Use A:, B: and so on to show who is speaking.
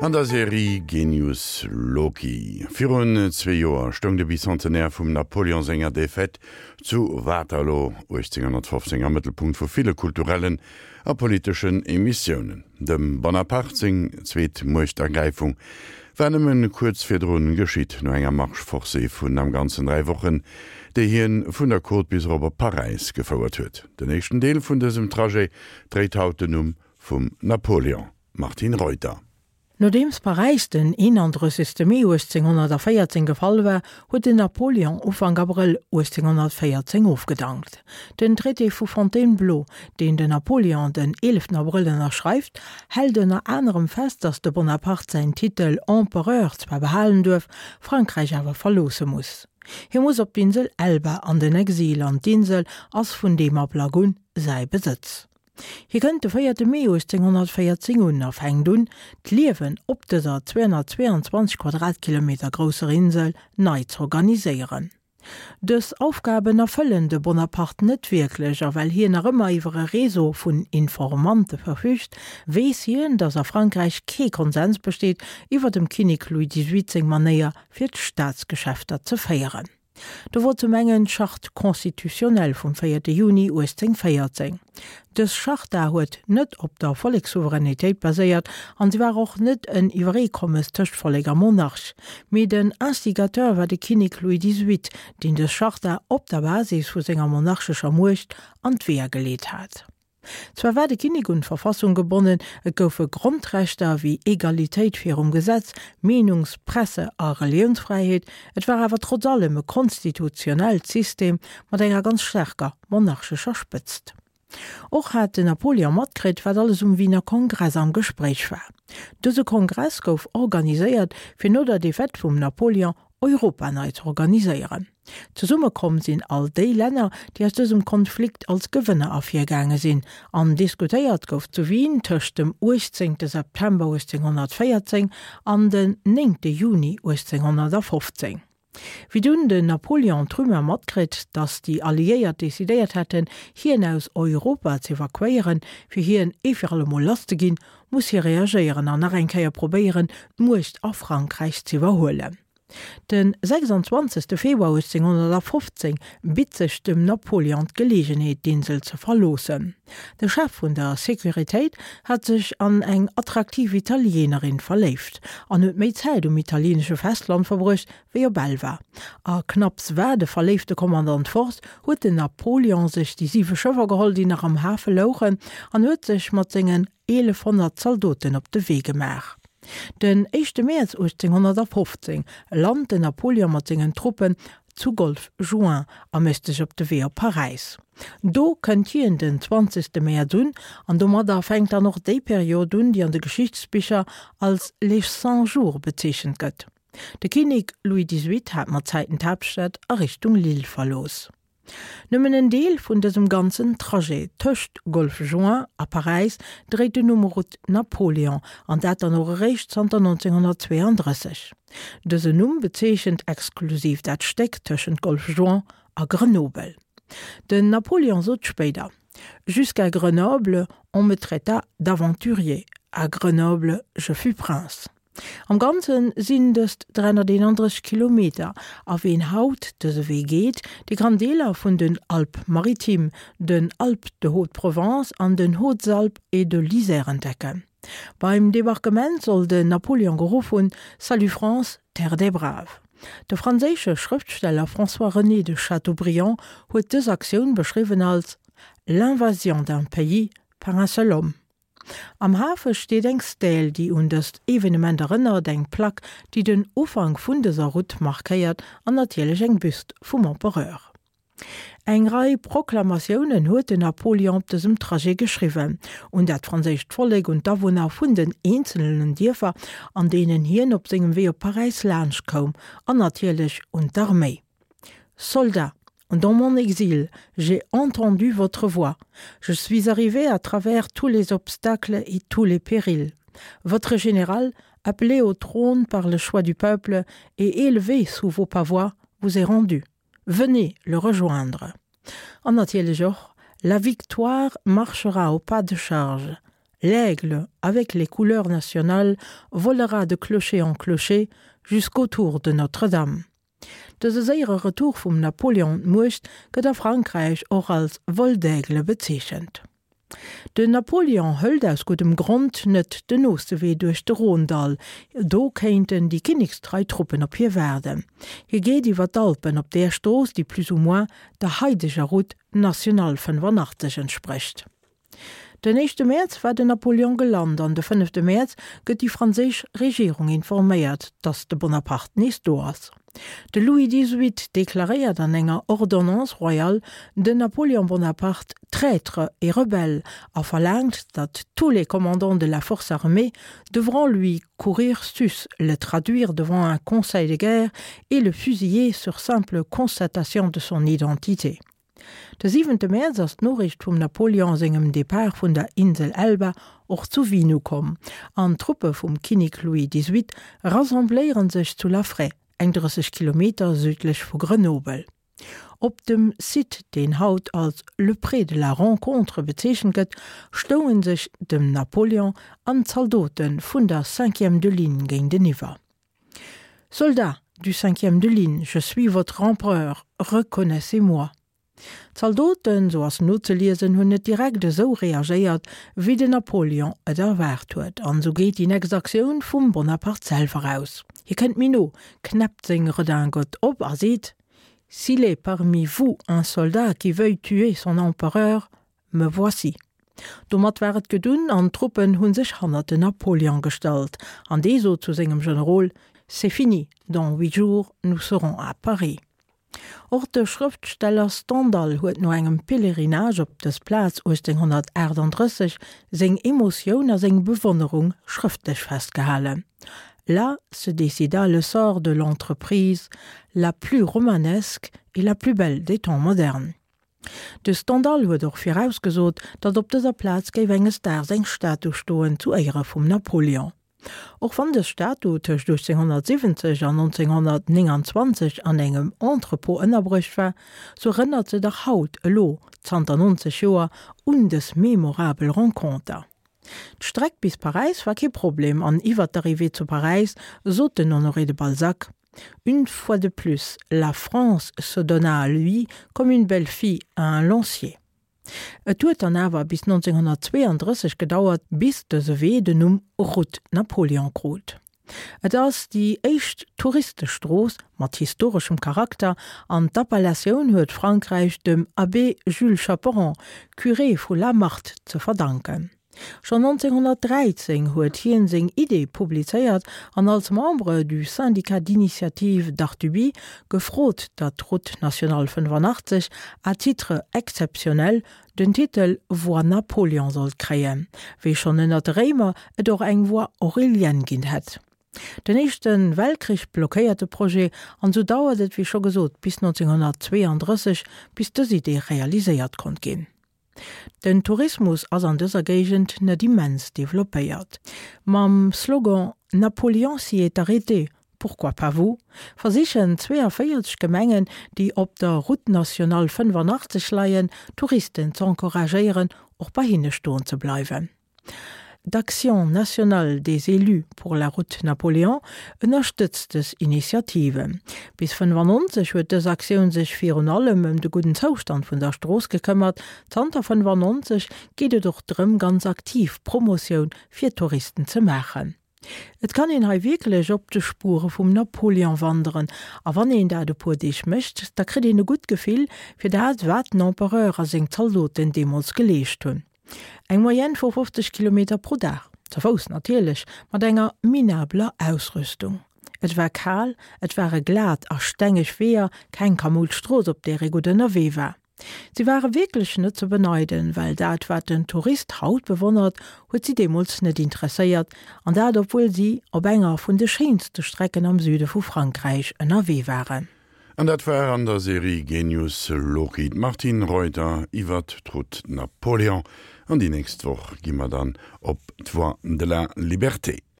A: An der Serie Genius Loki. Virun zwee Joer stoung de Bicentenaire vum Napoleon senger Defaite zu Waterloo 1815 am Mëttelpunkt vu ville kulturellen a politeschen Emissiounen. Dem Bonaparte seng zweet Muechtergräifung war nëmme kuerz virdrun geschitt, no enger Marche forcée vun am Ganzen 3 Wochen, déi hien vun der Côte bis erop op Paräis gefouert huet. Den éischten Deel vun dësem Trajet dréit haut den Numm vum Napoleon. Martine Reuter.
B: Nodeems Paräis den 31. Mee 1814 gefall war, huet den Napoleon Ufank Abrëll 1814 ofgedankt. Den Traité vu Fontainebleau, deen den Napoleon den 11 Abrëll ënnerschreift, hält ënner anerem fest, datt de Bonaparte säin Titel Empereur zwar behalen duerf, Frankräich awer verloosse muss. Hie muss op d'Insel Elba an den Exil an d'Insel ass vun deem Ablack un säi Besëtz. Hie kënnt de véierte Mee 1814 un a fänkt un, d'Liewen op dëser 222 Quadratkilometer grousser Insel nei z'organiséieren. Dës Aufgaben erfëllen de Bonaparte net wierklech a well hien nach ëmmer iwwer e Réseau vun Informante verfügt, weess hien, datt a Frankräich kee Konsens besteet iwwer dem Kinnek Louis xviii seng Manéier fir d'Staatsgeschäfter ze féieren. Do wor zum engen d'Charte constitutionnelle vum véierte Juni 1814. Dës Charta huet net op der Vollekssouveränitéit baséiert an se war och net en Iwwereekommes tëscht Vollek a Monarch. Mee den Instigateur war de Kinnek Louis xviii, deen dës Charta op der Basis vu senger monarchescher Muecht an d'Weeër geleet hat. Zwar war de Kinnek un d'Verfassung gebonnen, et goufe Grondrechter wéi Egalitéit virum Gesetz, Meenungs-, Presse a Reliounsfräiheet, et war awer trotz allem e konstitutionellt System mat enger ganz staarker monarchescher Spëtzt. Och hat den Napoleon matkritt, wat alles um Wiener Kongress am Gespréich war. Dëse Kongress gouf organiséiert, fir no der Defaite vum Napoleon Europa nei z'organiséieren. Zesumme komm sinn all déi Länner, déi aus dësem Konflikt als Gewënner ervirgaange sinn, an diskutéiert gouf zu Wien tëscht dem 18 September 1814 an den 9 Juni 1815. Wéi dunn den Napoleon d'Rumeur matkritt, datt déi Alliéiert decidéiert hätten, hien aus Europa z'evakuéieren, fir hien ee fir allemol lass ze ginn, muss hie reagéieren an nach eng Kéier probéieren, d'Muecht a Frankräich z'iwwerhuelen. De 26. Februar 1815 bitt sech dem Napoleon d'Geleegenheet, d'Insel ze verloossen. De Chef vun der Sécuritéit hat sech an eng attraktiv Italienerin verléift an huet méi Zäit um italienesche Festland verbruecht wéi op Elba. A knapps war de verléifte Kommandant fort, huet den Napoleon sech déi siwe Schëffer geholl, déi nach am Hafe louchen, an huet sech mat sengen 1.100 Zaldoten op de Wee gemaach. Den éischte Mäerz 1815 lant den Napoleon mat sengen Truppen zu Golf Juin a mécht sech op de Wee op Paräis. Do kënnt hien den 20. Mäerz un an domadder fänkt dann och déi Period un, déi an de Geschichtsbicher als les Cent Jours bezeechent gëtt. De Kinnek Louis xviii hat mat Zäiten d'Haaptstad a Richtung Lille verlooss. Nëmmen en Deel vun dësem ganzen Trajet tëscht Golfe Juin a Paräis dréit den Numm Route Napoléon, an dat dann och eréischt zanter 1932. Dësen Numm bezeechent exklusiv dat Stéck tëschent Golfe Juin a Grenoble. Den Napoléon sot spéider, Jusqu'à Grenoble, on me traita d'aventurier, à Grenoble, je fus prince. Am Ganze sinn dëst 331 Kilometer a ween haut dëse Wee geet, dee kann Deeler vun den Alpes-Maritimes, den Alpes-de-Haute-Provence an den Hautes-Alpes et de l'Isère entdecken. Beim Debarquement soll den Napoleon geruff hunn, Salut France, terre des braves. De franséische Schrëftsteller François-René de Chateaubriand huet dës Aktioun beschriwwen als L'invasion d'un pays par un seul homme. Am Hafe steet eng Stèle, déi un dëst Evenement erënnert, eng Plack, déi den Ufank vun dëser Route markéiert an natierlech eng Büst vum Empereur. Eng Rei Proklamatiounen huet den Napoleon op dësem Trajet geschriwwen, un dat franséischt Vollek, un d'Awunner vun den eenzelnen Dierfer, an deenen hien op sengem Wee op Paräis laanscht koum, an natierlech un d'Arméi. Soldats, Dans mon exil, j'ai entendu votre voix. Je suis arrivé à travers tous les obstacles et tous les périls. Votre général, appelé au trône par le choix du peuple et élevé sous vos pavois, vous est rendu. Venez le rejoindre. En natierlech och, La victoire marchera au pas de charge. L'aigle, avec les couleurs nationales, volera de clocher en clocher jusqu'aux tours de Notre-Dame. Dëse séiere Retour vum Napoléon un d'Muecht gëtt a Frankräich och als Vol d'aigle bezeechent. Den Napoléon hëlt aus guddem Grond net den nooste Wee duerch de Rhône-Dall, do kéinten déi kinnekstrei Truppen op hie waarden. Hie geet iwwer d'Alpen op där Strooss, déi plus ou moins der haideger Route nationale 85 entsprécht. Den éischte Mäerz war den Napoléon gelant an de fënnefte Mäerz gëtt déi franséisch Regierung informéiert, datt de Bonaparte nees do ass. De Louis xviii deklaréiert an enger Ordonnance royale den Napoléon Bonaparte traître et rebelle a verlaangt, datt tous les commandants de la force armée devront lui courir sus, le traduire devant un conseil de guerre et le fusiller sur simple constatation de son identité. De siwente Mäerz ass d'Noriicht vum Napoleon sengem Depart vun der Insel Elba och zu Wien ukomm, an d'Truppe vum Kinnek Louis xviii rassembléiere sech zu Laffrey, eng 30 Kilometer südlech vu Grenobel. Op dem Site, deen haut als Le Pré de la Rencontre bezeechent gëtt, stounge sech dem Napoleon an d'Zaldote vun der Cinquième de Ligne géinteniwwer. Soldats du cinquième de ligne, je suis votre empereur, reconnaissez-moi. D'Zaldoten, sou ass nozeliesen, hunn net direkt esou reagéiert, wéi den Napoléon et erwaart huet. An esou geet déi nächst Aktioun vum Bonaparte selwer aus. Hie kënnt méi no, knäppt seng Redingote op a seet, S'il est parmi vous un soldat qui veuille tuer son empereur, Me voici. Domat war et gedunn an d'Truppen hu sech hannert den Napoléon gestallt an dee sot zu sengem Generol, C'est fini, dans huit jours nous serons à Paris. Och de Schrëftsteller Stendhal huet no engem Pèlerinage op dës Plaz 1838 seng Emotioun a seng Bewonnerung schrëftlech festgehalen, Là se décida le sort de l'entreprise la plus romanesque et la plus belle des temps modernes. De Stendhal huet och virausgesot, datt op dëser Plaz géif enges Daags eng Statu stoen zu Éiere vum Napoléon. Och wann dës Statu tëscht 1870 an 1929 an engem Entrepôt ënnerbruecht war, sou erënnert se dach haut, elo zanter 90 Joer, un dës memorabel Renconter. D'Streck bis Paräis war kee Problem an iwwer d'Arrivée zu Paräis sot den Honoré de Balzac, Une fois de plus, la France se donna à lui comme une belle fille à un lancier. Et huet dann awer bis 1932 gedauert, bis dëse Wee den Numm Route Napoléon krut. Et ass déi éischt Touristestrooss mat historeschem Charakter an d'Appellatioun huet Frankräich dem Abbé Jules Chaperon, Curé vu La Marthe, ze verdanken. Schonn 1913 huet hien seng Idee publizéiert an als Membre du Syndicat d'initiative d'Artuby gefrot, datt d'Route nationale 85 à titre exceptionnel den Titel Voie Napoléon sollt kréien, wéi schonn ënner de Réimer et och eng Voie Aurélienne ginn hätt. Den Éischte Weltkrich blockéiert de Projet an esou dauert et, wéi scho gesot, bis 1932, bis dës Idee realiséiert konnt ginn. Den Tourismus ass an dëser Géigend net immens developpéiert. Mam Slogan Napoléon s'y est arrêté, pourquoi pas vous? versichen 42 Gemengen, déi op der Route nationale 85 leien, Touristen z'encouragéieren, och bei hinne stoen ze bleiwen. D'Action nationale des élus pour la route Napoléon ënnerstëtzt dës Initiative. Bis 95 huet dës Aktioun sech virun allem ëm de gudden Zoustand vun der Strooss gekëmmert. Zanter 95 geet et och drëm ganz aktiv Promotioun fir Touristen ze maachen. Et kann een hei wierklech op de Spuere vum Napoléon wanderen a wann een dat e puer Deeg mécht, da kritt een e gutt Gefill fir dat, wat den Empereur a seng Zaldoten deemools geleescht hunn. Eng Moyenne vu 50 Kilometer pro Dag, ze Fouss natierlech, mat enger minabeler Ausrüstung. Et war kal, et ware glat a stengeg Weeër, keng kamoud Strooss op där ee gutt ënnerwee war. Si ware wierklech net ze beneiden, well dat wat den Tourist haut bewonnert, huet si deemools net interesséiert, an dat obwuel si op enger vun de schéinste Strecken am Süde vu Frankräich ënnerwee waren.
A: An dat war an der Serie Genius Loci d'Martine Reuter iwwert d'Route Napoléon. An déi nächst Woch gi mer dann op d'Voie de la Liberté.